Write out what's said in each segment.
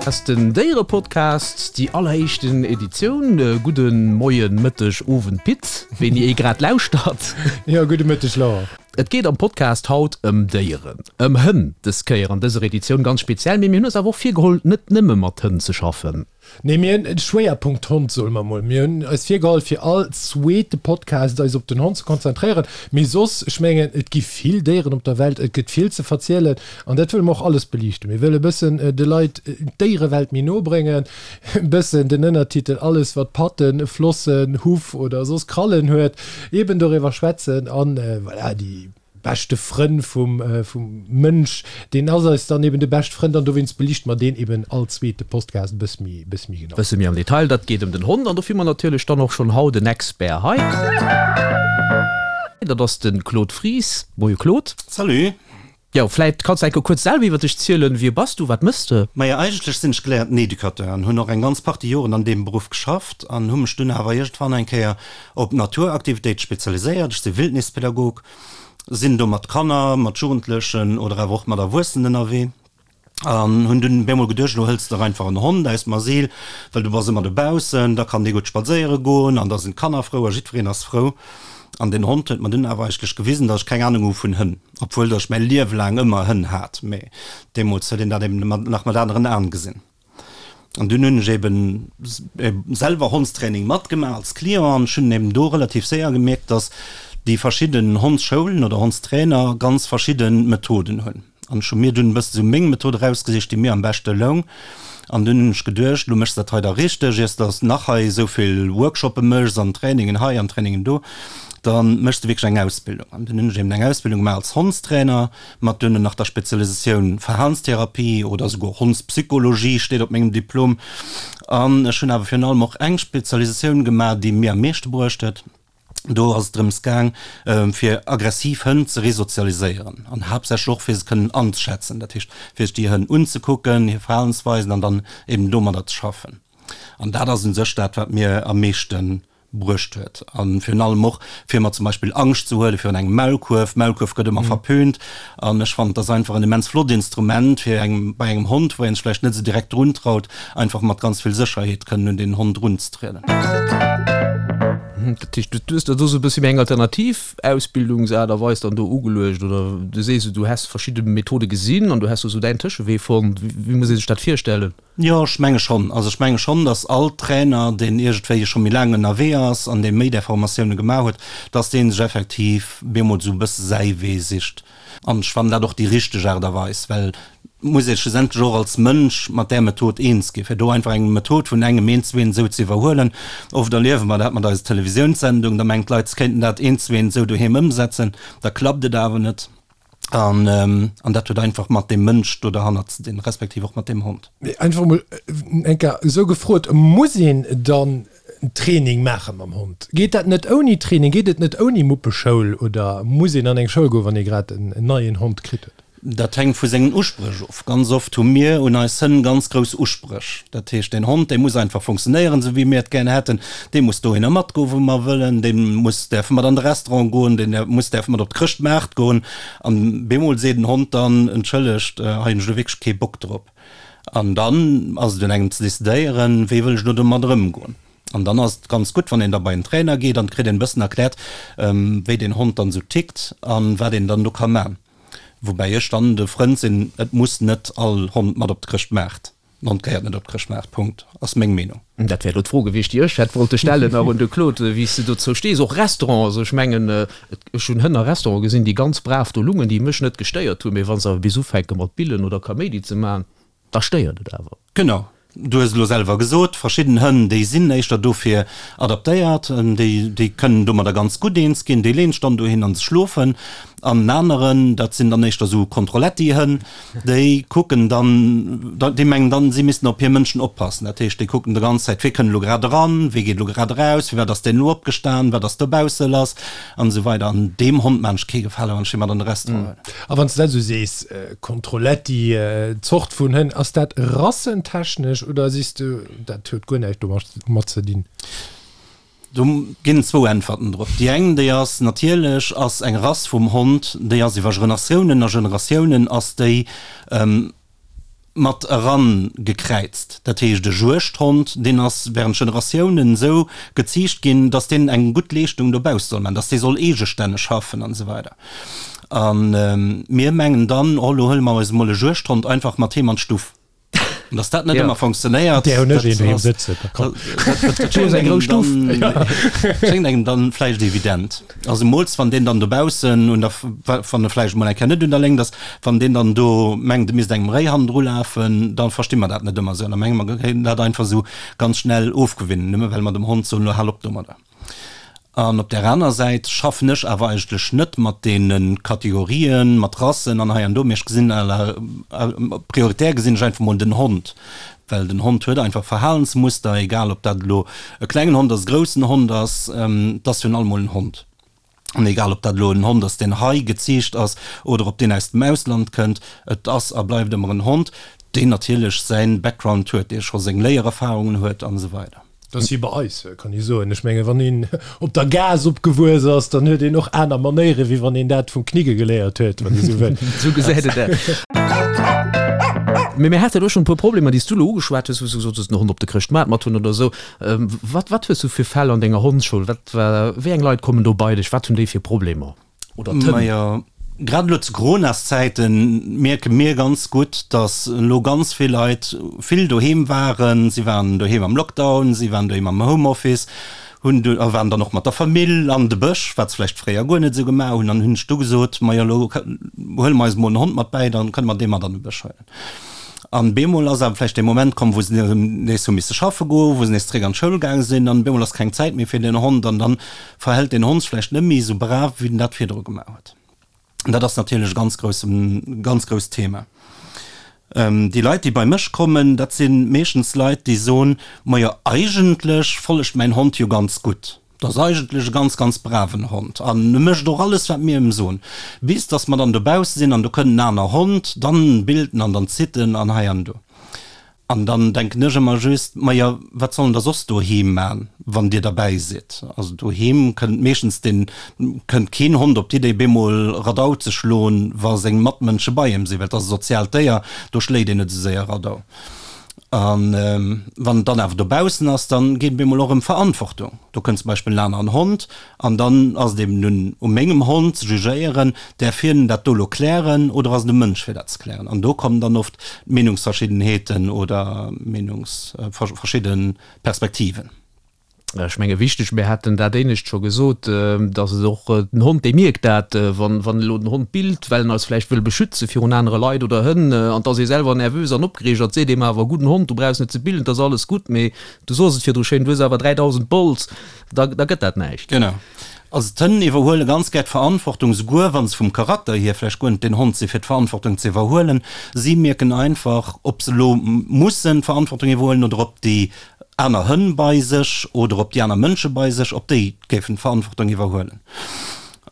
Ass den Déierepodcast, déi alleréischten Editioun. Gudde Moien, Mëtteg, Owend Pit, wéini ee grad lauschtert. Jo, gudde Mëtteg Laurent. Et geet am Podcast haut ëm Déieren, ëm Hënn dës Kéier an dëser Editioun ganz speziell, mee mir hunn eis awer och virgeholl, net nëmme mat Hënn ze schaffen. Nee, mir hunn en Schwéierpunkt Hond, soe mer mol. Mir hunn eis virgeholl, fir all zweete Podcast eis op den Hond ze konzentréieren. Mee soss, ech mengen, et gi vill Déieren op der Welt, et gëtt vill ze verzielen an dat wëlle mer och alles beliichten. Mir wëlle e bëssen de Leit d'Déierewelt méi no bréngen, e bëssen den Ënnertitel Alles wat Patten, Flossen, Huff oder soss Krallen huet, eben doriwwer schwätzen an voilà, déi. Beschte Frënn vum Mënsch, deen ass eis dann eben de bescht Frënd an dowéinst beliichte mer deen eben all zweete Postcast e bësse méi, bësse méi genau. Bësse méi am Detail, dat geet ëm den Hond an dofir hu mer natierlech dann och schonn haut en Expert hei. Dat ass de Claude Fries. Moie Claude. Salut. Jo, vläit kanns de enke kuerz selwer iwwer dech zielen. Wie bass du, wat mëss de? Maja, eigentlech sinn ech geléierten Educateur an hunn och eng ganz Partie Joren an deem Beruff geschafft an hu mech dunn awer iergendwann eng Kéier op Naturaktivitéite spezialiséiert. Ech si Wildnispedagog, sinn do mat Kanner, mat Jugendlechen oder awer och mat Erwuessenen ënnerwee an hunn dunn bemol geduecht, elo hëls de der einfach en Hond aus dem Asyl, well du bass ëmmer dobaussen, da kann dee gutt spadséiere goen an da sinn d'Kanner frou a jiddwereen ass frou. An deen Hond huet mer dunn awer eigentlech gewisen, datt ech keng Anung hu vun Hënn. Obwuel datt ech mäi Liewe laang ëmmer Hënn hat, mee deemools huet een dat eben nach mat aneren Aen gesinn. An dunn hunn ech eben selwer Hondstraining matgemaach als Client an ech hunn eben do relativ séier gemierkt, datt déi verschidden Hondsschoulen oder Hondstrainer ganz verschidde Methoden hunn. An ech hu mir dunn e bësse sou meng Method erausgesicht, déi mir am beschte loung. An dunn hunn ech geduecht, elo méchs de dat hei da richteg, iers de nach hei esou vill Workshoppe méchs an Trainingen hei an Trainingen do, da méchs de wierklech eng Ausbildung. An dunn hunn ech eben eng Ausbildung gemaach als Hondstrainer, mat duerno nach der Spezialisatioun Verhalenstherapie oder esouguer Hondspsychologie steet op mengem Diplom. An ech hunn awer virun allem och eng Spezialisatioun gemaach, déi mir am meeschte bruecht huet. Do ass et drëms gaang, fir aggressiv Hënn ze resozialiséieren an haaptsächlech och fir se kënnen anzeschätzen, dat heescht fir sech déi Hënn unzekucken, hir Verhalensweisen an dann eben domadder ze schaffen. An dat ass u sech dat, wat mir am meeschte bruecht huet. A virun allem och fir mer zum Beispill Angscht ze huele virun engem Maulkuerf. Maulkuerf gëtt ëmmer verpönt an ech fannen, et ass einfach en immens flott Instrument fir engem, bei engem Hond, wou een sech vläicht net esou direkt druntraut, einfach mat ganz vill Sécherheet kënnen un deen Hond runzetrieden. Dat heescht, du hues der do sou e bëssi méi eng alternativ Ausbildungsaart a Weis dann do ugeluecht oder du sees, du häss verschidde Methode gesinn an du häss do sou däin Tëschewee fonnt. Wéi muss ee sech dat virstellen? Jo, ech menge schonn. Also ech menge schonn, datt all Trainer, deen iergendwéi scho méi laang ënnerwee ass an dee méi där Formatioune gemaach huet, datt dee sech effektiv bemol sou e bësse säi Wee sicht. An ech fannen dat och déi richteg Aart a Weis, well et muss ee schlussendlech och als Mënsch mat där Method eens ginn. Fir do einfach eng Method vun engem eent zu eent esou ze iwwerhuelen, oft erliewe mer dat mat eiser Televisiounssendung, da mengen d'Leit, se kéinten dat eent zu eent esou doheem ëmsetzen, da klappt et awer net. An an dat huet einfach mat deem Mënsch do derhannert ze dinn, respektiv och mat deem Hond. Mee einfach emol eng Kéier esou gefrot, Muss een dann en Training maache mam Hond? Geet dat net ouni Training? Geet et net ouni Muppeschoul oder muss een an eng Schoul goen, wann ee grad en neien Hond kritt huet? Dat hänkt vu sengen Uspréch of. Ganz oft hu mir un eis Hënn ganz grouss Uspréch. Dat heescht, deen Hond, dee muss einfach funktionéieren, esou wéi mir et gär hätten. Dee muss dohinner matgoen, wou mer wëllen. Dee muss däerfe mat an de Restaurant goen. Deen muss däerfe mat op d'Chrëschtmaart goen. An bemol seet den Hond dann, Entschëllegt, hei hunn ech elo wierklech kee Bock drop. An dann ass et un engem ze decidéieren, wéi wëll ech elo domat ëmgoen. An dann ass et ganz gutt, wann een da bei en Trainer geet an et kritt een e bëssen erkläert, wéi deen Hond dann esou tickt an wat een dann do ka man. Woubäi ech dann de Frënd sinn, et muss net all Hond mat op de Chrëschtmaart. En Hond gehéiert net op de Chrëschtmaart, Punkt, ass meng Meenung. Dat wär elo d'Fro gewiescht, déi ech hätt wollte stellen nach un de Claude, wéi s de dozou stees. Och Restaurant, also ech mengen, ech hunn Hënn a Restaurante gesinn, déi ganz brav do lungen, déi mech net gestéiert hunn, mee wa se awer bis ufänke mat billen oder Kaméidi ze maachen, da stéiert et awer. Genau, du hues et elo selwer gesot, verschidden Hënn, déi sinn éischter dofir adaptéiert, déi, déi kënnen domadder ganz gutt eens ginn, déi leeën sech dann dohin an se schlofen. An en aneren, dat sinn dann éischter esou Kontrolletti-Hënn, Déi kucken dann, déi mengen dann, si missten op hir Mënschen oppassen. Dat heescht, déi kucken de ganz Zäit, wie kënnt elo grad eran, wie geet elo grad eraus, firwat ass deen elo opgestan, wat ass dobausse lass an esou weider. An deem Hond maan ech kee Gefale, wann ech dee mat an de Restaurant huelen. A wann s de dat esou sees, Kontrolletti, Zort vun Hënn, ass dat rassentechnesch oder sees de, dat huet guer näischt domat ze dinn? Do ginn et zwou Äntwerten drop. Déi eng, déi ass, natierlech ass eng Rass vum Hond, déi ass iwwer Generatiounen a Generatiounen ass déi. Mat eran gekräizt. Dat heescht e Juegdhond, deen ass während Generatiounen esou geziicht ginn, datt deen eng gutt Leeschtung dobausse soll maachen, datt dee soll eegestänneg schaffen an esou weider. A mir mengen dann, oh lo huele mer eis emol e Juegdhond einfach mat heem an d'Stuff. An datt dat net ëmmer funktionéiert, Där hunn ech een doheem sëtzen. dat schéngt engem dann vläicht evident. Also zemools wann deen dann dobaussen un der, wann e vläicht emol eng Kéier net un der Léngt ass, wann deen dann do mengt, e misst engem Réi hannendru lafen, da versti mer dat net ëmmer esou an da menge mer, mir kéinten dat einfach esou ganz schnell ofgewinnen, nëmme well mer dem Hond soen, elo hal op domadder. An op där aner Säit schaffen ech awer eigentlech net mat deene Kategorien, mat Rassen an hei an do, mee ech gesinn à la, prioritär gesinn ech einfach mol den Hond, Well den Hond huet einfach Verhalensmuster, egal ob dat elo e klengen Hond ass, e groussen Hond ass, et ass virun allem mol en Hond. An egal ob dat elo en Hond ass, deen hei geziicht ass oder ob deen aus dem Ausland kënnt, et ass a bleift ëmmer en Hond, deen natierlech säin Background huet, dee scho seng Léiererfarungen huet an esou weider. Dat ass wéi bei eis, kann ee soen. Ech mengen, wann een op der Gaass opgewuess ass, dann huet een och aner Manéieren, wéi wann een dat vum Knigge geléiert huet, wann ee sou wëll. Sou gesäit et aus. Mee mir hate elo schonn e puer Problemer, déi s du elo ugeschwat hues, wou s du gesot hues, den Hond op de Chrëschtmaart mat hunn oder esou. Wat, wat hues du fir Fäll an denger Hondsschoul? Wat, wéi eng Leit kommen do bei dech? Wat hunn déi fir Problemer? Oder d'Hënn. Majo, grad elo zu Coronaszäiten mierke mir ganz gutt, datt elo ganz vill Leit vill doheem waren. Si waren doheem am Lockdown, si waren doheem am Homeoffice, hunn du a waren dann och mat der Famill an de Bësch, wat se vläicht fréier guer net esou gemaach hunn. An hunn ech du gesot, majo elo huele mer eis emol en Hond mat bäi, dann kënne mer dee mat an de Bësch huelen. An bemol ass awer vläicht dee Moment komm, wou se nees hu misse schaffe goen, wou se nees zeréck an d'Schoul gaange sinn an bemol ass keng Zäit méi fir den Hond an dann verhält den Hond sech vläicht net méi esou brav, wéi en dat virdru gemaach huet. An dat ass natierlech e ganz grousse, ganz grousst Thema. Déi Leit, déi bei mech kommen, dat si meeschtens Leit, déi soen, Majo, eigentlech follegt mäin Hond jo ganz gutt. Dat ass eigentlech e ganz, ganz braven Hond an e mécht och alles, wat mir em soen. Bis dass mer dann dobausse sinn an do kënnt en aner Hond, dann billt en an dann zitt en an hei an do. An dann denken ech ëmmer just, Majo, wat soll en da soss doheem man, wann Dir derbäi sidd? Also doheem kënnt meeschtens den, kënnt keen Hond op d'Idee bemol Radau ze schloen, wa seng Matmënsche bei em sinn, well et ass e soziaalt Déier, do schléit een net esou séier Radau. A wann en dann awer dobaussen ass, dann geet et bemol och ëm Verantwortung. Do kënnt zum Beispill en aneren Hond an dann ass et eben un u mengem Hond ze jugéieren, däerf hien dat do elo klären oder ass et um Mënsch fir dat ze klären? An do kommen dann oft Meenungsverschiddenheeten oder Meenungs verschidde Perspektiven. Ech menge wichteg, mir haten dat éinescht scho gesot, datt et och den Hond, dee mierkt dat, wann wann elo den Hond billt, well en eis vläicht wëll beschütze virun anere Leit oder Hënn, an et ass ee selwer nervös an opgereegt an et seet eem awer, gudden Hond, du brauchs net ze billen, et ass alles gutt, mee du sos et virdru schéin, du hues awer 3.000 Bols, da da gëtt dat näischt. Genau. Also d'Hënn iwwerhuele ganz gär d'Verantwortung, souguer wa se vum Charakter hier vläicht guer net den Hond si fir d'Verantwortung ze iwwerhuelen. Si mierken einfach, ob se elo mussen d'Verantwortung iwwerhuelen oder ob déi aner Hënn bei sech oder ob déi aner Mënsche bei sech, ob déi géifen d'Verantwortung iwwerhuelen.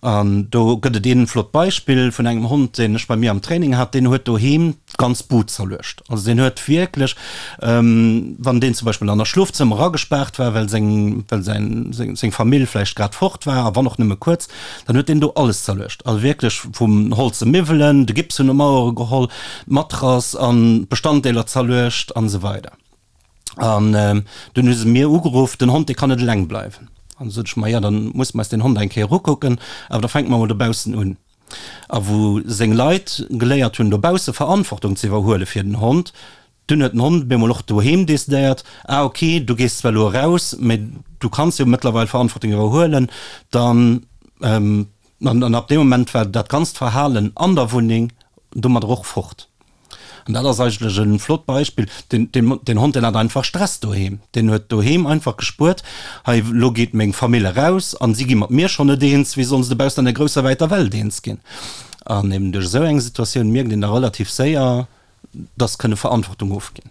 An do gëtt et een flott Beispill vun engem Hond, deen ech bei mir am Training hat, deen huet doheem d'ganz Bud zerluecht. Also deen huet wierklech, wann deen zum Beispill an der Schlofzëmmer agespaart war, well seng, well säin, seng, seng Famill vläicht grad fort war, a wann och nëmme kuerz, dann huet deen do alles zerluecht. Also wierklech vum holze Miwwelen, de Gips vun de Mauere geholl, d'Matrass an d'Bestanddeeler zerluecht an esou weider. An dunn hu se mir ugeruff, den Hond, dee kann net eleng bleiwen. An du sot ech, ma jo, dann musse mer eis deen Hond eng Kéier ukucken, awer da fänke mer emol dobaussen un. A wou seng Leit geléiert hunn, dobausse Verantwortung ze iwwerhuele fir den Hond, dunn huet den Hond op eemol och doheem decidéiert, ah ok, du gees zwar elo eraus, mä du kanns jo mëttlerweil Verantwortung iwwerhuelen, dann. An ab deem Moment war dat ganzt Verhalen an der Wunneng domadder och fort. An dat ass eigentlech e flott Beispill. Den, den, den Hond, deen hat einfach Stress doheem. Deen huet doheem einfach gespuert, Hei, elo geet meng Famill eraus an si gi mat mir schonn net eens, wéi sollen se dobaussen an der grousser wäiter Welt eens ginn? An eben duerch esou eng Situatioun mierkt een da relativ séier, dass kënne Verantwortung ofginn.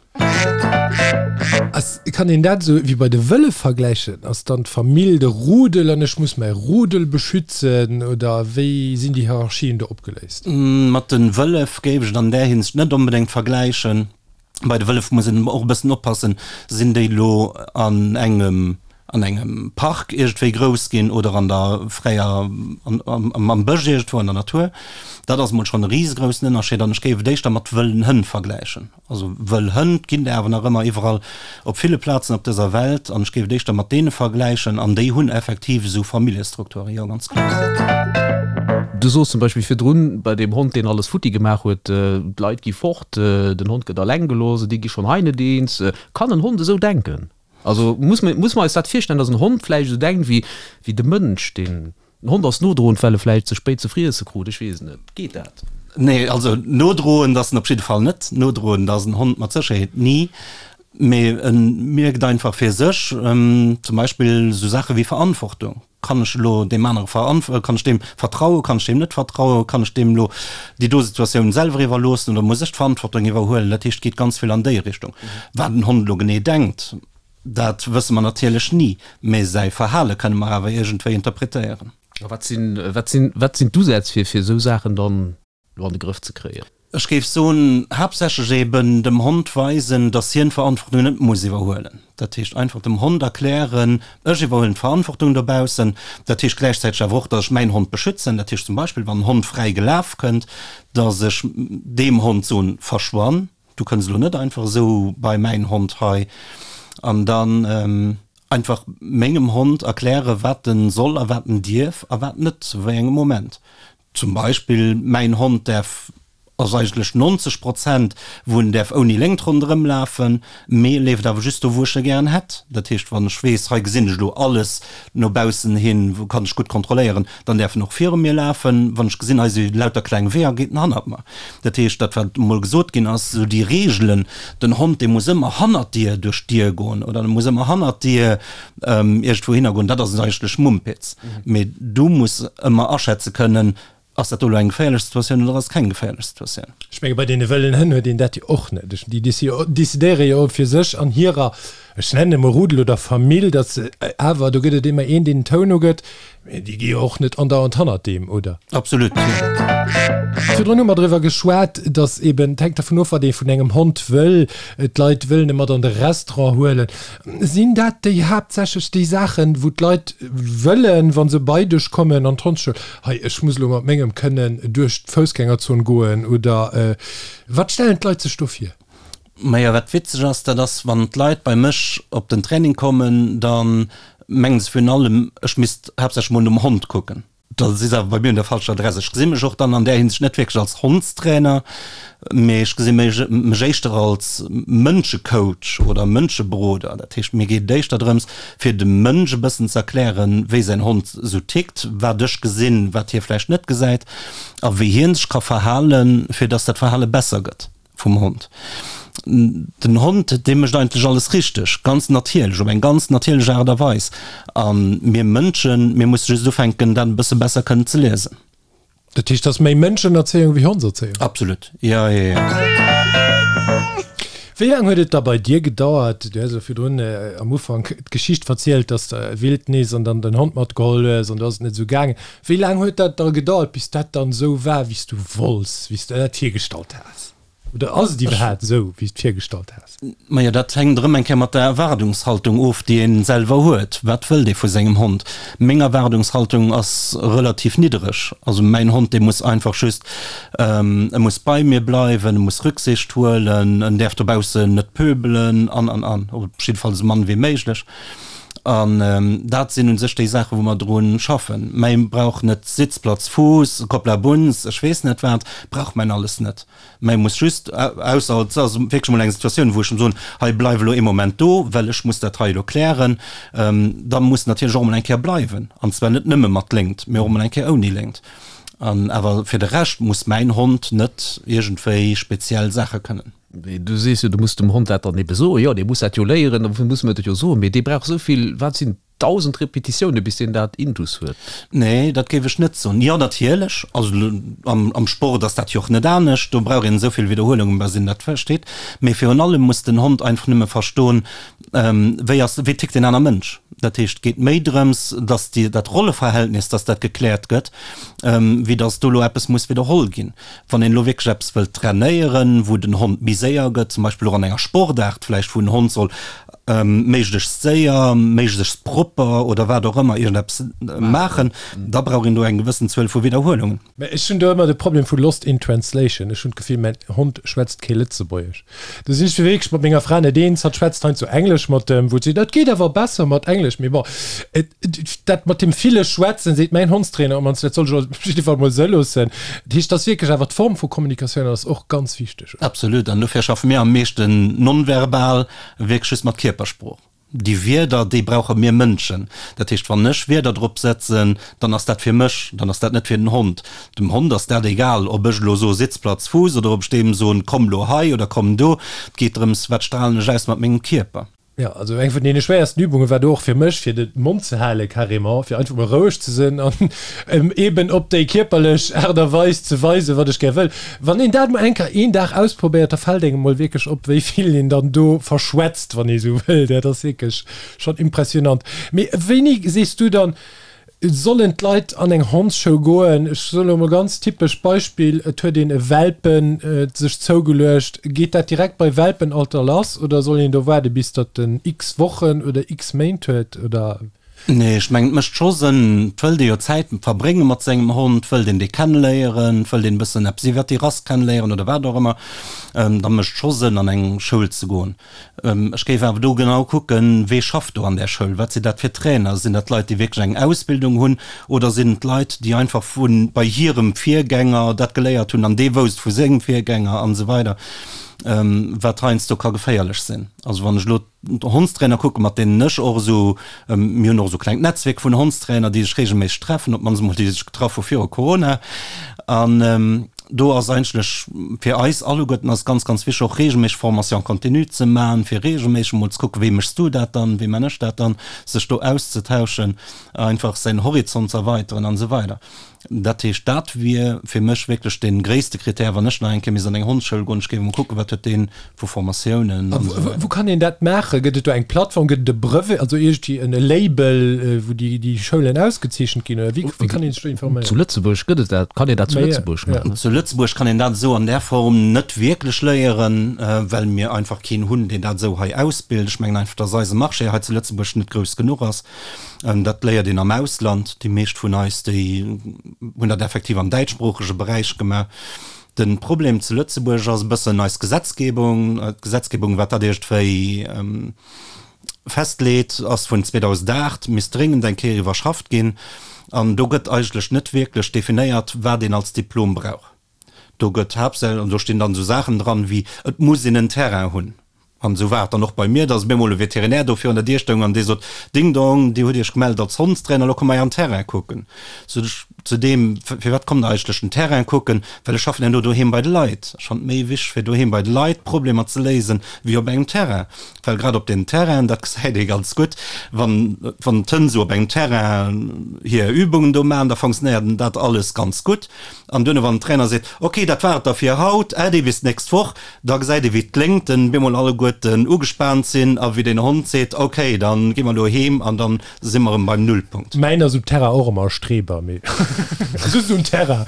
Ass, kann een dat esou wéi bei de Wëllef vergläichen? Ass dann d'Famill de Rudel an ech muss mäi Rudel beschützen oder wéi sinn déi Hierarchien do opgeléist? Mat de Wëllef géif ech et an där Hinsicht net onbedéngt vergläichen. Bei de Wëllef muss een och e bëssen oppassen, sinn déi elo an engem. an engem Park iergendwéi grouss ginn oder an der fräier, am Bësch iergendwou an der Natur. Dat ass emol schonn e risegroussen Ënnerscheed an ech géif et éischter mat wëllen Hënn vergläichen. Also wëll Hënn ginn der awer nach ëmmer iwwerall op ville Plazen op dëser Welt an ech géif et éischter mat deene vergläichen an déi hunn effektiv esou Familljestrukturen, jo ganz kloer. Du soos zum Beispill virdrun bei deem Hond deen alles futti gemaach huet, d'Leit gi fort, den Hond gëtt alleng gelooss, déi gi schonn hei net eens. Kann en Hond esou denken? Also muss mer muss mer eis dat virstellen, datt en Hond vläicht esou denkt wéi wéi de Mënsch, deen den Hond ass nodroend, well e vläicht ze spéit ze friesse krut, ech weess et net. Geet dat? Nee, also nodroend ass en op jidde Fall net. Nodroend ass en Hond mat Sécherheet ni. Mee e mierkt einfach fir sech, zum Beispill esou Saache wéi Verantwortung. Kann ech elo deem anere veranf-, kann ech deem vertrauen, kann ech deem net vertrauen, kann ech deem elo déi do Situatioun selwer iwwerloossen oder muss ech d'Verantwortung iwwerhuelen? Dat heescht, et geet ganz vill an déi Richtung. Wat en Hond elo genee denkt, dat wësse mer natierlech ni, mä säi Verhale kënne mer awer iergendwéi interpretéieren. A wat sinn, wat sinn, wat sinn d'Usätz fir, fir esou Saachen dann elo an de Grëff ze kréien? Ech géif soen, haaptsächlech eben dem Hond weisen, dass hien d'Verantwortung net muss iwwerhuelen. Dat heescht einfach dem Hond erklären, ech iwwerhuelen d'Verantwortung dobaussen. Dat heescht gläichzäiteg awer och, dass ech mäin Hond beschützen. Dat heescht zum Beispill, wann en Hond fräi gelaf kënnt, dass ech deem Hond soen, verschwann, du kënns elo net einfach esou bei mäin Hond hei. An dann einfach mengem Hond erklären, wat en soll a wat en dierf a wat net, zu wéi engem Moment. Zum Beispill mäin Hond däerf, ass eigentlech 90 Prozent wou en däerf ouni Léngt ronderëm lafen, mee e leeft awer just do wou ech e gären hätt. Dat heescht wann ech weess, hei gesinn ech elo alles no baussen hin, wou kann ech gutt kontrolléieren, dann däerf en och viru mir lafen. Wann ech gesinn, hei si lauter kleng Weeër, geet en hannert mer. Dat heescht dat wat emol gesot ginn ass, esou déi Reegelen, den Hond dee muss ëmmer hannert dir duerch d'Dier goen oder e muss ëmmer hannert dir iergendwou hinner goen, dat ass eigentlech Mumpitz. Mee du muss ëmmer aschätze kënnen, ass dat do elo eng geféierlech Situatioun oder ass et keng geféierlech Situatioun. Ech menge bei deene wëllen Hënn huet een dat jo och net. Déi decidéiere jo fir sech an hirer, ech nennen emol Rudel oder Famill, datt se awer, do gëtt et ëmmer een, deen den Toun ugëtt, Mee déi gi jo och net andauernd hannert deem, oder? Absolut, jo. Virdrun hu mer driwwer geschwat, datt eben, et hänkt dervun of, wat ee vun engem Hond wëll. D'Leit wëllen e mat an de Restaurant huelen. Sinn dat déi haaptsächlech déi Saachen, wou d'Leit wëllen, wa se bei dech kommen an d'Hondsschoul, Hei, ech muss elo mat mengem kënnen duerch d'Foussgängerzon goen, oder wat stellen d'Leit sech do vir? Majo, wat witzeg ass, dat ass, wann d'Leit bei mech op den Training kommen, da mengen se virun allem, ech misst haaptsächlech mol nom Hond kucken. Da si se awer bei mir un der falscher Adress. Ech gesi mech och dann an där Hinsicht net wierklech als Hondstrainer, mee ech gesi mech éischter als Mënschecoach oder Mënscheberoder. Dat heescht, mir geet et éischter drëms, fir dem Mënsch e bëssen ze erklären, wéi säin Hond esou tickt, wat ech gesinn, wat hie vläicht net gesäit a wéi hie sech ka verhalen, fir dass dat Verhale besser gëtt. Vum Hond. Den Hond, dee mécht eigentlech alles richteg, ganz natierlech, op eng ganz natierlech Aart a Weis. A mir Mënschen, mir musse just ufänken, dat e bësse besser kënnen ze liesen. Dat heescht, dat ass méi Mënschenerzéiung wéi Hondserzéiung? Absolut, jo, jo, jo. Wéi laang huet et da bei dir gedauert, du hues elo virdrun am Ufank d'Geschicht verzielt, dass de Wildnis an dann den Hond matgeholl hues an do ass et net esou gaangen. Wéi laang huet dat da gedauert, bis dat dann esou war, wéi s du wollts, wéi s de dat virgestallt has? Oder ass et iwwerhaapt esou, wéi s de virgestallt has? Majo, dat hänkt erëm eng Kéier mat der Erwaardungshaltung of, déi ee selwer huet. Wat wëllt ee vu sengem Hond? Meng Erwaardungshaltung ass relativ niddereg. Also mäin Hond, dee muss einfach just, e muss bei mir bleiwen, e muss Rücksicht huelen, en däerf dobaussen net pöbelen an, an, an. Op jidde Fall esou mann wéi méiglech. An dat sinn u sech déi Saachen, wou mer dru schaffen. Mäi brauch net Sitzplatz, Fuuss, Koppla Bunz, ech weess net wat, brauch mäin alles net. Mäi muss just, ausser et ass wierklech emol eng Situatioun, wou ech em soen, hei bleif elo ee Moment do, well ech muss dat hei elo klären, da muss en natierlech och emol eng Kéier bleiwen. An zwar net nëmme mat Léngt, mee och emol eng Kéier ouni Léngt. An awer fir de Rescht muss mäin Hond net iergendwéi speziell Saache kënnen. Du sees jo, du muss dem Hond dat dann ebe soen. Jo, dee muss dat jo léieren, dofir muss mer et jo soen. Mee dee brauch esou vill, wat sinn 1.000 Repetitioune bis deen dat intus huet. Nee, dat géif ech net soen. Jo, natierlech, also am Sport ass dat jo och net anescht, do brauch een esou vill Widderhuelungen, bis een dat versteet. Mee virun allem muss den Hond einfach nëmme verstoen, wéi ass, wéi tickt deen aner Mënsch. Dat heescht, et geet méi drëms, datt déi, dat Rolleverhältnis, datt dat gekläert gëtt, wéi datt do elo eppes muss widderholl ginn. Wann een elo wierklech eppes wëllt trainéieren, wou den Hond méi séier gëtt, zum Beispill och an enger Sportaart vläicht, wou en Hond soll. Méiglechst séier, méiglechst propper oder wat och ëmmer iergendeppes maachen, da brauch een do eng gewëssen Zuel vu Widderhuelungen. Mä ech hunn do ëmmer de Problem vu lost in translation. Ech hunn d'Gefill, mäin Hond schwätzt kee Lëtzebuergesch. Do sinn ech wierklech mat menger Fra net eens. Hatt schwätzt heiansdo Englesch mat em, wou et seet, dat geet awer besser mat Englesch. Mee bon, et, dat mat deem ville Schwätzen, seet mäin Hondstrainer ëmmer, dat soll ech op jidde Fall mol sou loossen. Dat heescht, et ass wierklech awer d'Form vu Kommunikatioun ass och ganz wichteg. Absolut. An dofir schaffe mir am meeschten nonverbal, wierklech just mat Kierpersprooch. Déi Wierder, déi brauche mir Mënschen. Dat heescht, wann ech Wierder drop setzen, dann ass dat fir mech, dann ass dat net fir den Hond. Dem Hond ass dat egal, ob ech elo soe Sitzplatz, Fuuss oder ob ech deem soen komm lo hei oder komm do. Et geet drëms, wat stralen ech aus mat mengem Kierper. Jo, also eng vun deene schwéiersten Übunge war do och fir mech, fir de Mond ze hale carrément, fir einfach mol roueg ze sinn an eben op déi kierperlech Aart a Weis ze weisen, wat ech gär wëll. Wann een dat mol eng Kéier een Dag ausprobéiert, da fält engem mol wierklech op, wéi vill een dann do verschwätzt, wann ee sou wëll. Dat ass wierklech schonn impressionant. Mee wéini sees du dann, sollen d'Leit an eng Hondsschoul goen? Ech soen elo mol ganz typesch Beispill, et huet een e Welpen sech zougeluecht. Geet dat direkt bei Welpenalter lass oder soll een do waarde bis datt en x Wochen oder x Méint huet oder? Nee, ech mengen et mécht scho Sënn. Et wëllt ee jo Zäit verbrénge mat sengem Hond, et wëllt een dee kenneléieren, et wëllt een e bëssen eppes iwwert déi Rass kenneléieren oder wat och ëmmer. Da mécht et scho Sënn an eng Schoul ze goen. Ech géif awer do genau kucken, wee schafft do an där Schoul, wat sinn dat fir Trainer, sinn dat Leit, déi wierklech eng Ausbildung hunn oder sinn et Leit, déi einfach vu bei hirem Virgänger dat geléiert hunn an dee wousst vu sengem Virgänger an esou weider, wat heiansdo ka geféierlech sinn. Also wann ech elo Hondstrainer kucken, mat deenen ech och esou, mir hunn och esou e klengt Netzwierk vun Hondstrainer, déi sech reegelméisseg treffen, op d'mannst emol déi sech getraff hu viru Corona. An do ass eigentlech fir eis alleguerten ass ganz, ganz wichteg och reegelméisseg Formation continue ze maachen, fir reegelméisseg emol ze kucken, wéi méchs du dat dann, wéi man ech dat dann, sech do auszetauschen, einfach säin Horizont ze erweiteren an esou weider. Dat heescht, dat wier fir mech wierklech dee gréisste Krittär, wann ech nach eng Kéier misst an eng Hondsschoul goen, ech géif emol kucken, wat huet dee vu Formatiounen an esou weider. Wou kann een dat maachen? Gëtt et do eng Plattform, gëtt et e Brevet, also iergendwéi en Label, wou déi Schoulen ausgezeechent ginn, oder wéi kann ee sech do informéieren? Zu Lëtzebuerg gëtt et dat, kann een dat zu Lëtzebuerg maachen? Zu Lëtzebuerg kann een dat esou an där Form net wierklech léieren, well mir einfach keen hunn, deen dat esou hei ausbilt. Ech mengen einfach, dass eise Marché hei zu Lëtzebuerg net grouss genuch ass. Dat léiert een am Ausland. Déi meescht vun eis, déi hunn dat effektiv am däitschsproochege Beräich gemaach. De Problem zu Lëtzebuerg ass e bëssen eis Gesetzgebung. D'Gesetzgebung, wat dat iergendwéi festleet, ass vun 2008, misst dréngend eng Kéier iwwerschafft ginn. An do gëtt eigentlech net wierklech definéiert, wat een als Diplom brauch. Do gëtt haaptsächlech, an do stinn dann esou Saachen dran wéi, et muss een en Terrain hunn. An esou war et dann och bei mir, dass op eemol e Veterinär do virun der Dier stoung an dee sot, Ding Dong, Dir hutt Iech gemellt als Hondstrainer, elo kommt mer Ären Terrain kucken. Sot ech zu deem, Firwat kommt Der eigentlech den Terrain kucken? Well ech schaffen herno doheem bei de Leit. Ech fannen et méi wichteg, fir doheem bei de Leit Problemer ze léisen, wéi op engem Terrain. Well grad op den Terrainen, dat gesäit ee ganz gutt, wann, wann d'Hënn esou op engem Terrain hir Übungen do maachen, da fonctionnéiert dat alles ganz gutt. An duerno wann den Trainer seet, ok, dat war et da fir haut, äddi bis d'nächst Woch, da gesäit ee wéi d'Léngten bemol alleguerten ugespaant sinn a wéi den Hond seet, ok, da gi mer elo heem an da si mer erëm beim Nullpunkt. Mäin ass um Terrain och ëmmer e Streber, mee just um Terrain.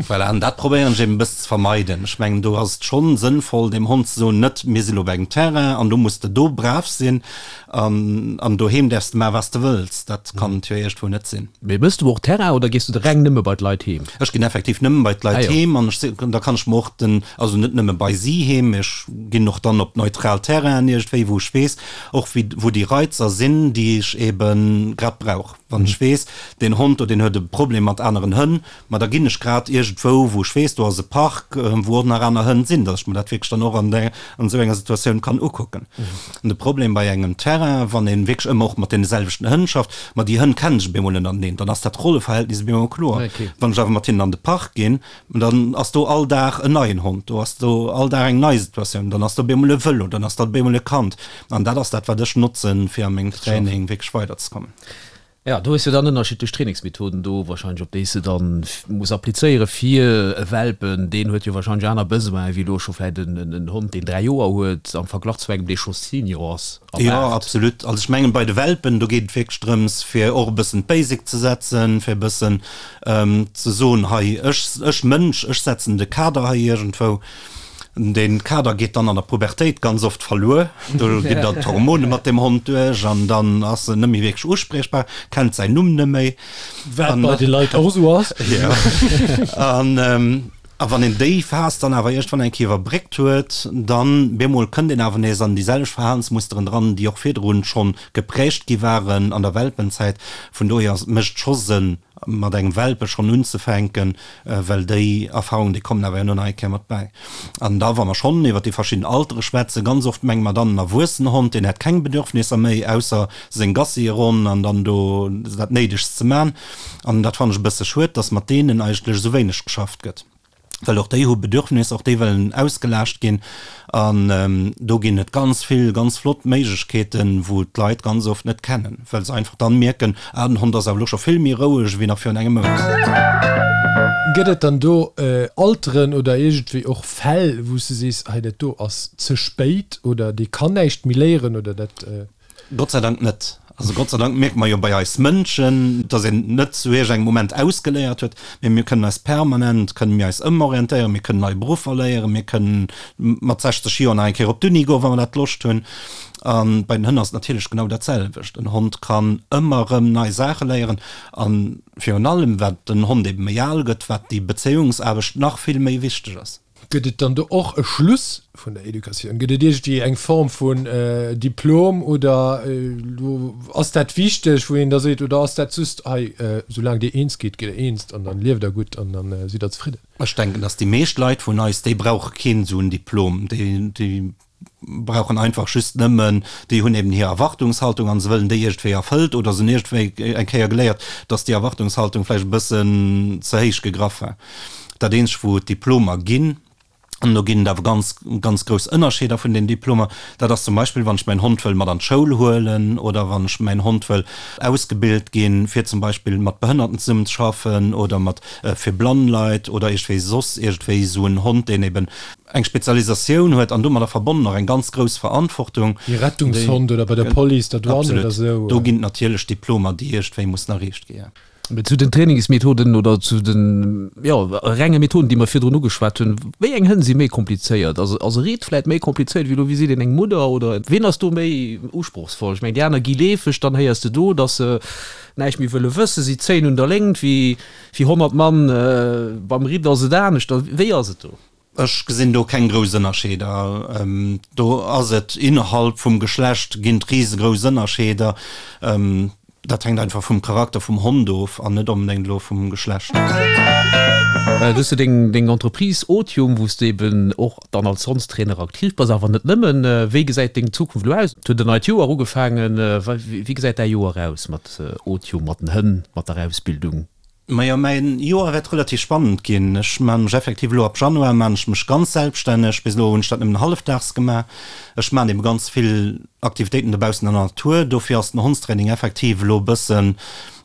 Voilà, an dat probéieren ech eben e bëssen ze vermeiden. Ech mengen, do ass et schonn sënnvoll dem Hond ze soen, net mir si lo op engem Terrain an do muss de do brav sinn, An, an doheem däerfs de maachen, wat s de wëlls. Dat kann et jo iergendwou net sinn. Mee mëss du och Terrain oder gees du de reng nëmme bei d'Leit heem? Ech ginn effektiv nëmme bei d'Leit heem an ech si, da kann ech mer och den, also net nëmme bei si heem, mee ech ginn och dann op neutral Terrainen iergendwéi, wou ech weess och wéi, wou déi Reizer sinn, déi ech ebe grad brauch. Wann ech weess, deen Hond do, deen huet e Problem mat aneren Hënn, Ma da ginn ech grad iergendwou, wou ech weess, do ass e Park, wou och nach aner Hënn sinn, datt ech mer dat wierklech dann och an där, an esou enger Situatioun kann ukucken. An de Problem bei engem Terrain, wann ee wierklech ëmmer och mat deene selwechten Hënn schafft, ma déi Hënn kennen sech op eemol ënnerteneen, dann ass dat Rolleverhältnis op eemol kloer. Wann ech awer mat hinnen an de Park ginn, dann ass do all Dag en neien Hond, do ass do all Dag eng nei Situatioun, dann ass do op eemol e Vëlo, dann ass dat op eemol e Kand. An dat ass dat, wat ech notzen, fir a mengem Training wierklech weiderzekommen. Jo, do hues jo dann ënnerschiddlech Trainingsmethoden do wahrscheinlech, op déi s de dann muss applizéieren fir e Welpen. Deen huet jo wahrscheinlech aner Besoinen wéi elo scho vläit en Hond, deen 3 Joer huet, am Verglach zu engem, dee scho Senior ass a Jo, 8. absolut. Also ech mengen, bei de Welpen, do geet et wierklech drëms, fir och e bëssen d'Basic ze setzen, fir e bëssen ze soen, hei, ech, ech Mënsch, ech setzen de Kader hei iergendwou. Dee Kader geet dann an der Pubertéit ganz oft verluer. Do ginn dann d'Hormone mat dem Hond duerch an dann ass en net méi wierklech uspriechbar, kennt säin Numm net méi. Wat bei de Leit och esou ass. Jo. An a wann een déi Phas dann awer iergendwann eng Kéier iwwerbréckt huet, dann bemol kënnt een awer nees an déi selwecht Verhalensmusteren dran, déi och virdrun schonn geprägt gi waren an der Welpenzäit. Vun dohier ass, mécht et scho Sënn, mat engem Welpe schonn unzefänken, well déi Erfahrungen, déi kommen awer herno nach eng Kéier mat bäi. An da wa mer schonn iwwer déi verschidden Altere schwätzen, ganz oft menge mer dann en erwuessenen Hond, deen hätt keng Bedürfnisser méi, ausser seng Gassieronn an dann do dat Néidegst ze man. An dat fannen ech e bësse schued, dass mat deenen eigentlech esou wéineg geschafft gëtt. Well och déi hu Bedürfnisser, och déi wëllen ausgelaascht ginn. An do ginn et ganz vill ganz flott Méiglechkeeten, wou d'Leit ganz oft net kennen, well se einfach dann mierken, ah den Hond ass awer elo scho vill méi roueg ewéi nach virun engem Mount. Gëtt et dann do Alteren oder iergendwéi och Fäll, wou s de sees, hei dat do ass ze spéit oder dee kann näischt méi léieren oder dat. Gott sei Dank net. Also Gott sei Dank mierke mer jo bei eis Mënschen, dass een net zu iergengem Moment ausgeléiert huet, mee mir kënnen eis permanent, kënnen mir eis ëmorientéieren, mir kënnen nei Beruffer léieren, mir kënnen mat 60 Joer nach eng Kéier op d'Uni goen, wa mer dat Loscht hunn. A bei den Hënn ass et natierlech genau dat selwecht. En Hond kann ëmmer erëm nei Saache léieren a virun allem, wat den Hond ebe méi al gëtt, wat déi Bezéiungsaarbecht nach vill méi wichteg ass. Gëtt et dann do och e Schluss vun der Educatioun? Gëtt et iergendwéi eng Form vun Diplom oder ass dat wichteg, wou een da seet, oder ass dat just, hei, soulaang Dir eens gitt, gitt Der eens an dann lieft Der gutt an dann sidd Der zefridden? Ech denken, dass déi meescht Leit vun eis, déi brauche keen esou en Diplom. Déi brauchen einfach just nëmmen, déi hunn eben hir Erwartungshaltung an se wëllen déi iergendwéi erfëllt oder se hunn iergendwéi eng Kéier geléiert, dass déi Erwartungshaltung vläicht e bëssen ze héich gegraff war. Dat eenzegt, wou et Diplomer ginn, an do ginn et awer ganz, ganz grouss Ënnerscheeder vun den Diplomer, dat ass zum Beispill, wann ech mäin Hond wëll mat an d'Schoul huelen oder wann ech mäin Hond wëll ausgebilt ginn, fir zum Beispill mat Behënnerten zesummen ze schaffen oder mat fir blann Leit oder iergendwéi soss iergendwéi esou en Hond, deen eben eng Spezialisatioun huet an domadder verbonnen och eng ganz grouss Verantwortung. Wéi Rettungshond oder bei der Police, der Douane oder esou. Absolut. Do ginn et natierlech Diplomer, déi iergendwéi mussen erreecht gi. Mee zu den Trainingsmethoden oder zu den, jo, renge Methoden, déi mer virdrun ugeschwat hunn, wéi eng Hënn si méi komplizéiert? Ass ass e Ridd vläit méi komplizéiert wéi elo, wéi seet een, eng Mudder oder wien ass do méi usprochsvoll? Ech mengen, déi aner gi leefeg, dann héiers de do, datt se näischt méi wëlle wëssen, si zéien un der Léngt wéi wéi 100 Mann, beim Ridd ass et anescht. Wéi ass et do? Ech gesinn do keng grouss Ënnerscheeder. Do ass et innerhalb vum Geschlecht ginn et risegrouss Ënnerscheeder. Dat hänkt einfach vum Charakter vum Hond of an net onbedéngt elo vum Geschlecht. Du hues jo deng Entreprise Otium, wou s de eben och dann als Hondstrainer aktiv bass, awer net nëmmen. Wéi gesäit deng Zukunft elo aus? Et huet en neit Joer ugefaangen. Wéi gesäit däi Joer aus mat Otium, mat den Hënn, mat der Ausbildung? Majo, mäin Joer wäert relativ spannend ginn. Ech maan mech effektiv elo ab Januar maan ech mech ganz selbststänneg. Bis elo hunn ech dat nëmmen hallefdaags gemaach. Ech maan eben ganz vill Aktivitéiten dobaussen an der Natur. Dofir ass den Hondstraining effektiv elo e bëssen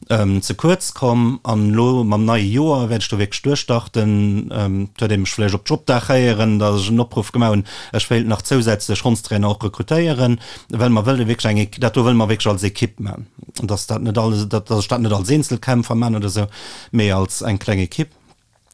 ze kuerz komm. An elo mam neie Joer wäert ech do wierklech duerchstarten. Et huet ee mech vläicht op Jobdag héieren, datt ech en Opruff gemaach hunn, ech wéilt nach zousätzlech Hondstrainer och rekrutéieren, well mer wëlle wierklech eng, dat do wëlle mer wierklech als Ekipp maan. Dass dat net alles, dass ech dat net als Eenzelkämpfer man oder esou, mee als eng kleng Ekipp.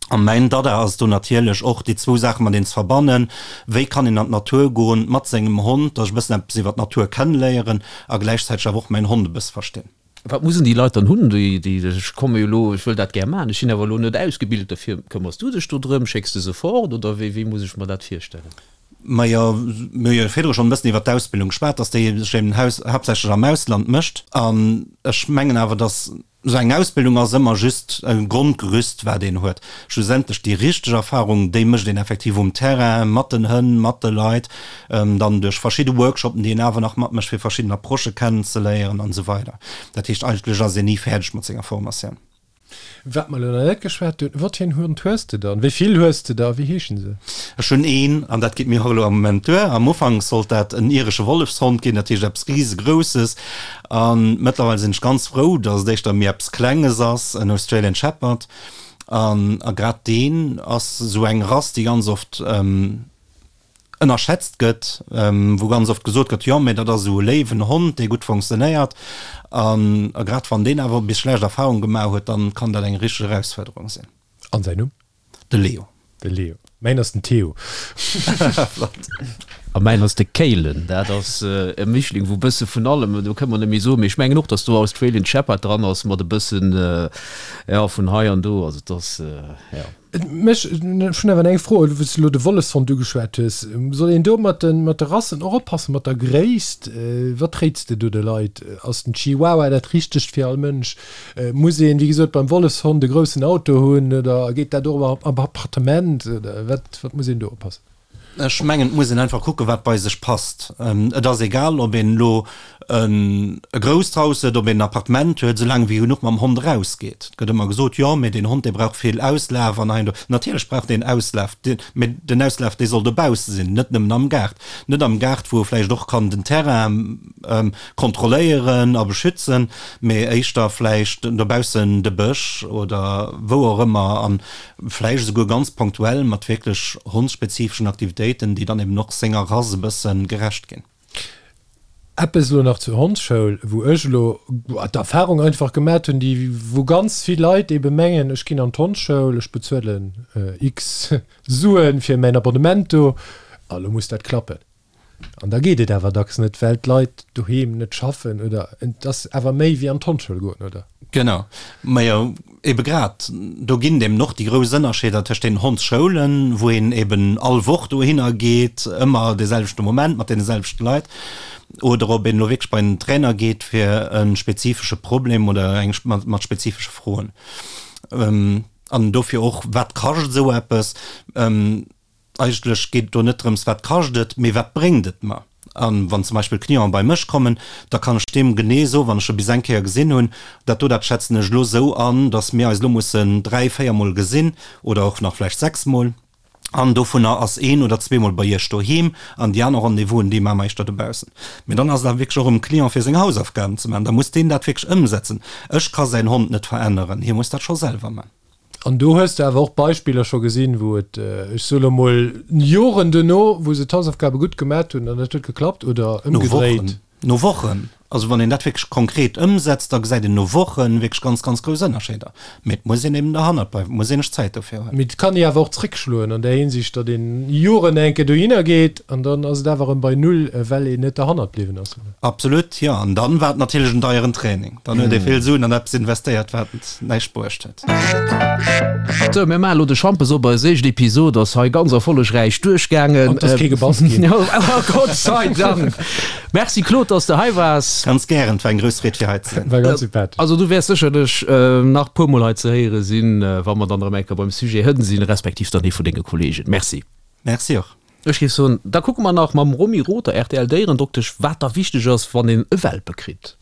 A mäin Dada ass do natierlech och, déi zwou Saache mateneen ze verbannen, Wéi kann een an d'Natur goen mat sengem Hond, dass ech e bëssen eppes iwwer d'Natur kenneléieren a gläichzäiteg awer och mäin Hond e bësse verstinn. Wat mussen déi Leit dann hunn, déi, déi, ech komme jo elo, ech wëll dat gär maachen, ech sinn awer elo net ausgebilt dofir. Këmmers du dech do drëm? Schécks de se fort oder wéi, wéi muss ech mer dat virstellen? Majo, mir hu jo virdru schonn e bëssen iwwert d'Ausbildung geschwat, dass déi sech eben haaptsächlech am Ausland mécht. An ech mengen awer, dass esou eng Ausbildung ass ëmmer just e Grondgerüst, wat een huet. Schlussendlech déi richteg Erfahrung, déi mécht een effektiv um Terrain, mat den Hënn, mat de Leit, dann duerch verschidde Workshopen, déi een awer nach matmécht, fir verschidden Approchë kennenzeléieren an esou weider. Dat heescht, eigentlech ass een ni fäerdeg mat senger Formatioun. Wat mer elo nach net geschwat hunn, Wat fir en Hond hues de dann? Wéi vill hues de der a wéi heeschen se? Ech hunn een, an dat geet mir och elo am Moment duer. Am Ufank sollt dat en iresche Wollefshond ginn, dat heescht eppes Risegrousses. A mëttlerweil sinn ech ganz frou, datt et éischter méi eppes Klenges ass, en Australian Shepherd. An a grad deen ass esou eng Rass, déi ganz oft ënnerschätzt gëtt, wou ganz oft gesot gëtt, jo, mä dat ass esou e léiwen Hond, dee gutt fonctionnéiert. An grad wann deen awer bis schlecht Erfahrung gemaach huet, dann kann dat eng richteg Erausfuerderung sinn. An säin Numm? De Leo. De Leo. Mäin ass den Theo. Flott. A mäin ass de Kaylen. Dat ass e Mischling wou bësse vun allem, do kënne mer net méi soen, mee ech mengen och, datt do Australian Shepherd dran ass mat e bëssen, jo, vun hei an do. Also et ass, jo. Mech, ech hunn awer eng Fro, wou s de elo de Wollefshond ugeschwat hues. Soll een do mat de, mat de Rassen och oppassen, mat der Gréisst? Wat réits de do de Leit? Ass den Chihuahua dat Richtegt fir all Mënsch? Muss een, wéi gesot, beim Wollefshond e groussen Auto hunn oder geet dat och am Appartement? Oder wat, wat muss een do oppassen? Ech mengen, et muss een einfach kucken, wat bei sech passt. Et ass egal, ob een elo e grousst Haus huet, ob een en Appartement huet, soulaang wéi genuch mam Hond erausgeet. Et gëtt ëmmer gesot, jo, mee deen Hond, dee brauch vill Auslaf an hei an do. Natierlech brauch deen Auslaf, mee den Auslaf, dee soll dobausse sinn, net nëmmen am Gaart. Net am Gaart, wou e vläicht och kann den Terrain kontrolléieren a beschützen, mee éischter vläicht dobaussen de Bësch oder wou och ëmmer. An Vläicht esouguer ganz ponktuell mat wierklech hondsspezifeschen Aktivitéiten, déi dann eben och senger Rass e bësse gerecht ginn. Eppes elo nach zur Hondsschoul, wou ech elo d'Erfahrung einfach gemat hunn, déi wou ganz vill Leit ebe mengen, ech ginn an d'Hondsschoul, ech bezuelen x Suen fir mäin Abonnement do, a lo muss dat klappen. An da geet et awer dacks net, well d'Leit doheem net schaffen oder et ass awer méi wéi an d'Hondsschoul goen, oder? Genau. Majo, ebe grad do ginn et eben och déi grouss Ënnerscheeder tëscht den Hondsschoulen, wou een eben all Woch dohinner geet, ëmmer de selwechte Moment mat deene selwechte Leit, oder ob een elo wierklech bei en Trainer geet fir e spezifesche Problem oder eng mat spezifesche Froen. An dofir och, wat kascht esou eppes? Eigentlech geet et do net drëms, wat kascht et, mee wat bréngt et mer? A wann zum Beispill Clienten bei mech kommen, da kann ech deem genee soen, wann ech e bis eng Kéier gesinn hunn, dat do, dat schätzen ech elo esou an, datt mir eis elo mussen dräi, véiermol gesinn oder och nach vläicht sechsmol, an dovunner ass een oder zweemol bei Iech doheem an déi aner Rendez-vousen, déi maache mer éischter dobaussen. Mee dann ass et awer wierklech och um Client, fir seng Hausaufgaben ze maachen. Da muss deen dat wierklech ëmsetzen. Ech ka säin Hond net veränneren, hie muss dat scho selwer maachen. An do hues de awer och Beispiller scho gesinn, wou et, ech soe lo mol, Joren duerno, wou se d'Hausaufgabe gutt gemat hunn an et huet geklappt, oder No ëmgedréit? Wochen, no Wochen. Also wann een dat wierklech konkret ëmsetzt, da gesäit een no Woche wierklech ganz, ganz grouss Ënnerscheeder. Mee et muss een eben derhannert bleiwen, et muss een sech Zäit dofir huelen. Mee et kann ee awer och zréckschloen an där Hinsicht, datt een Joren eng Kéier dohinner geet an dann ass et awer erëm bei Null, well een net derhannert bliwwen ass. Absolut, jo. An dann war et natierlech en deieren Training. Dann huet ee vill Suen an eppes investéiert, wat näischt bruecht huet. Sou, mir maachen elo de Schampes op. Eis éischt Episod ass hei ganz erfollegräich duerchgaangen. An et ass kee gebass ginn. Gott sei Dank! Merci Claude, dass de hei waars. Ganz gären, et war eng grouss Freed fir hei ze sinn. War ganz sympathesch. Also du wäers sécherlech nach puer mol hei ze héiere sinn, wa mer dann erëm eng Kéier beim Sujet Hënn sinn, respektiv dann ee vun denge Kollegen. Merci. Merci och. Ech géif soen, da kucke mer nach mam Romy Rother, RTL-Déierendoktesch, wat da wichteg ass, wann een e Welpe kritt.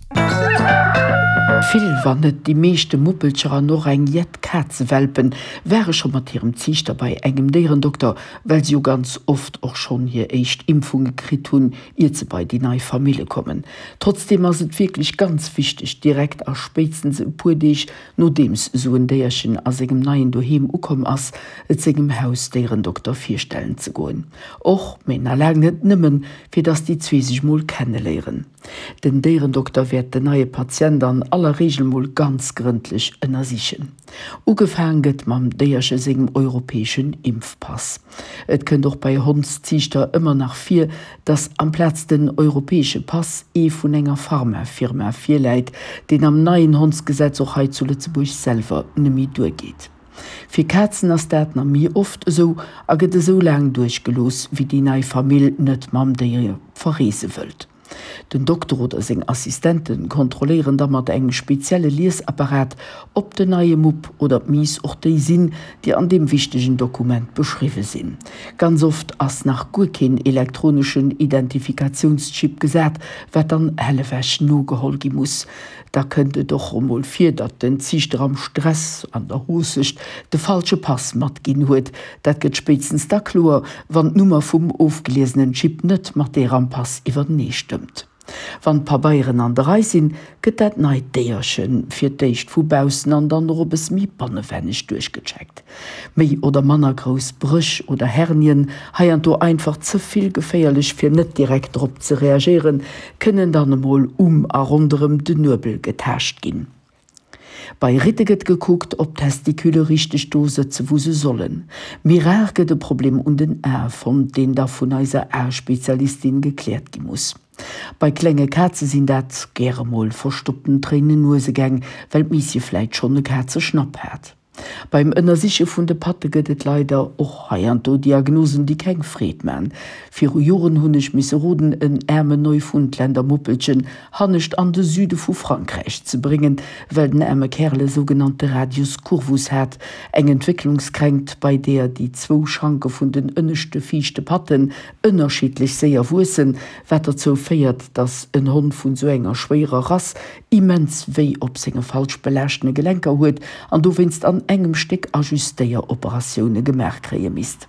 Vill, wann net déi meeschte Muppelcher an och eng jett Kazewelpen ware scho mat hirem Ziichter bei engem Déierendokter, well se jo ganz oft och schonn hir éischt Impfunge kritt hunn, iert se bei déi nei Famille kommen. Trotzdeem ass et wierklech ganz wichteg, direkt a spéitstens e puer Deeg Nodeems esou en Déierchen a sengem neien Doheem ukomm ass, et sengem Hausdéierendokter virstellen ze goen. Och, mee na laang net nëmmen, fir dass déi zwee sech mol kenneléieren. Den Déierendokter wäert den neie Patient an aller Reegel mol ganz grëndlech ënnersichen. Ugefaang gëtt mam Déierche sengem europäeschen Impfpass. Et kënnt och bei Hondsziichter ëmmer nach vir, dass amplaz den europäesche Pass ee vun enger Pharmafirma virläit, deen am neien Hondsgesetz och hei zu Lëtzebuerg selwer neméi duergeet. Fir Kazen ass dat na méi oft esou a gëtt esou laang duerchgelooss, wéi déi nei Famill net mam Déier verreese wëllt. Den Dokter oder seng Assistente kontrolléieren da mat engem spezielle Liesapparat, ob den neie Mupp oder d'Miiss och déi sinn, déi an deem wichtegen Dokument beschriwwe sinn. Ganz oft ass nach guer keen elektroneschen Identifikatiounschip gesat, wat dann hellewech nogeholl gi muss. Da kënnt et och emol vir, datt den Ziichter am Stress, an der Hoosecht, de falsche Pass matginn huet. Dat gëtt spéitstens da kloer, wann d'Nummer vum ofgeliesenen Chip net mat deer am Pass iwwertenee stëmmt. Wann d'Pabeieren an der Rei sinn, gëtt dat neit Déierche fir d'éischt vu baussen an dann och e bësse méi bannewenneg duerchgecheckt. Méi oder manner grouss Bréch oder Hernien, heianddo einfach ze vill geféierlech fir net direkt drop ze reagéieren, kënnen dann emol um a ronderëm den Nuebel getaascht ginn. Bei Ritte gëtt gekuckt, ob d'Testicule richteg do sëtze wou se sollen. Méi rar gëtt e Problem un den Ae fonnt, deen da vun eiser Aespezialistin gekläert gi muss. Bei klenge Kaze sinn dat gäre mol verstoppten Tréinen-Nuesegäng, well d'Miisje vläit schonn e Kazeschnapp hat. Beim Ënnersiche vun de Patte gëtt et leider och heianddo Diagnosen, déi keng Freed man. Viru Joren hunn ech misse roden, en äermen Neufundländer Muppelchen hannescht an de Süde vu Frankräich ze bréngen, well den äerme Kärel e sougenannte Radius curvus hat, eng Entwécklungskränkt, bei deeër déi zwou Schanke vun den ënneschte viischte Patten ënnerschiddlech séier wuessen, wat derzou féiert, dass en Hond vun sou enger schwéierer Rass immens wéi op senge falsch belaaschtene Gelenker huet an dowéinst an engem Stéck Ajustéieroperatioune gemaach kréie misst.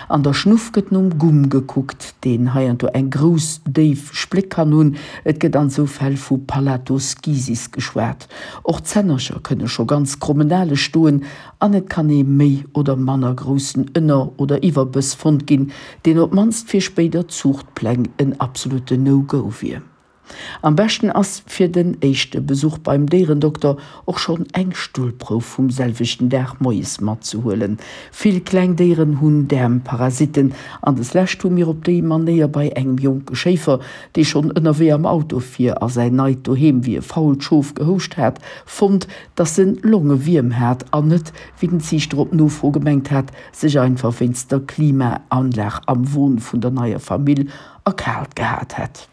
An der Schnuff gëtt nom Gumm gekuckt, deen heiansdo eng grouss, déif Spléck kann hunn. Et gëtt an sou Fäll vu Palatoschisis geschwat. Och d'Zännercher kënne scho ganz krommenale stoen an et kann ee méi oder manner groussen Ënner oder Iwwerbëss fonnt ginn, deen op d'mannst fir spéider Zuuchtpläng en absolutten No-Go wier. Am beschten ass fir den éischte Besuch beim Déierendokter och schonn eng Stullprouf vum selwechten Dag moies matzehuelen. Vill kleng Déieren hunn Däermparasitten an des lescht hu mir op déi Manéier bei engem jonke Schéifer, dee schonn ënnerwee am Auto fir a säin neit Doheem wéi e fault Schof gehouscht hat, fonnt, dass en Longewierm hat an net, wéi den Ziichter op Nofro gemengt hat, sech einfach wéinst der Klimaanlag am Won vun der neier Famill erkaalt gehat hätt.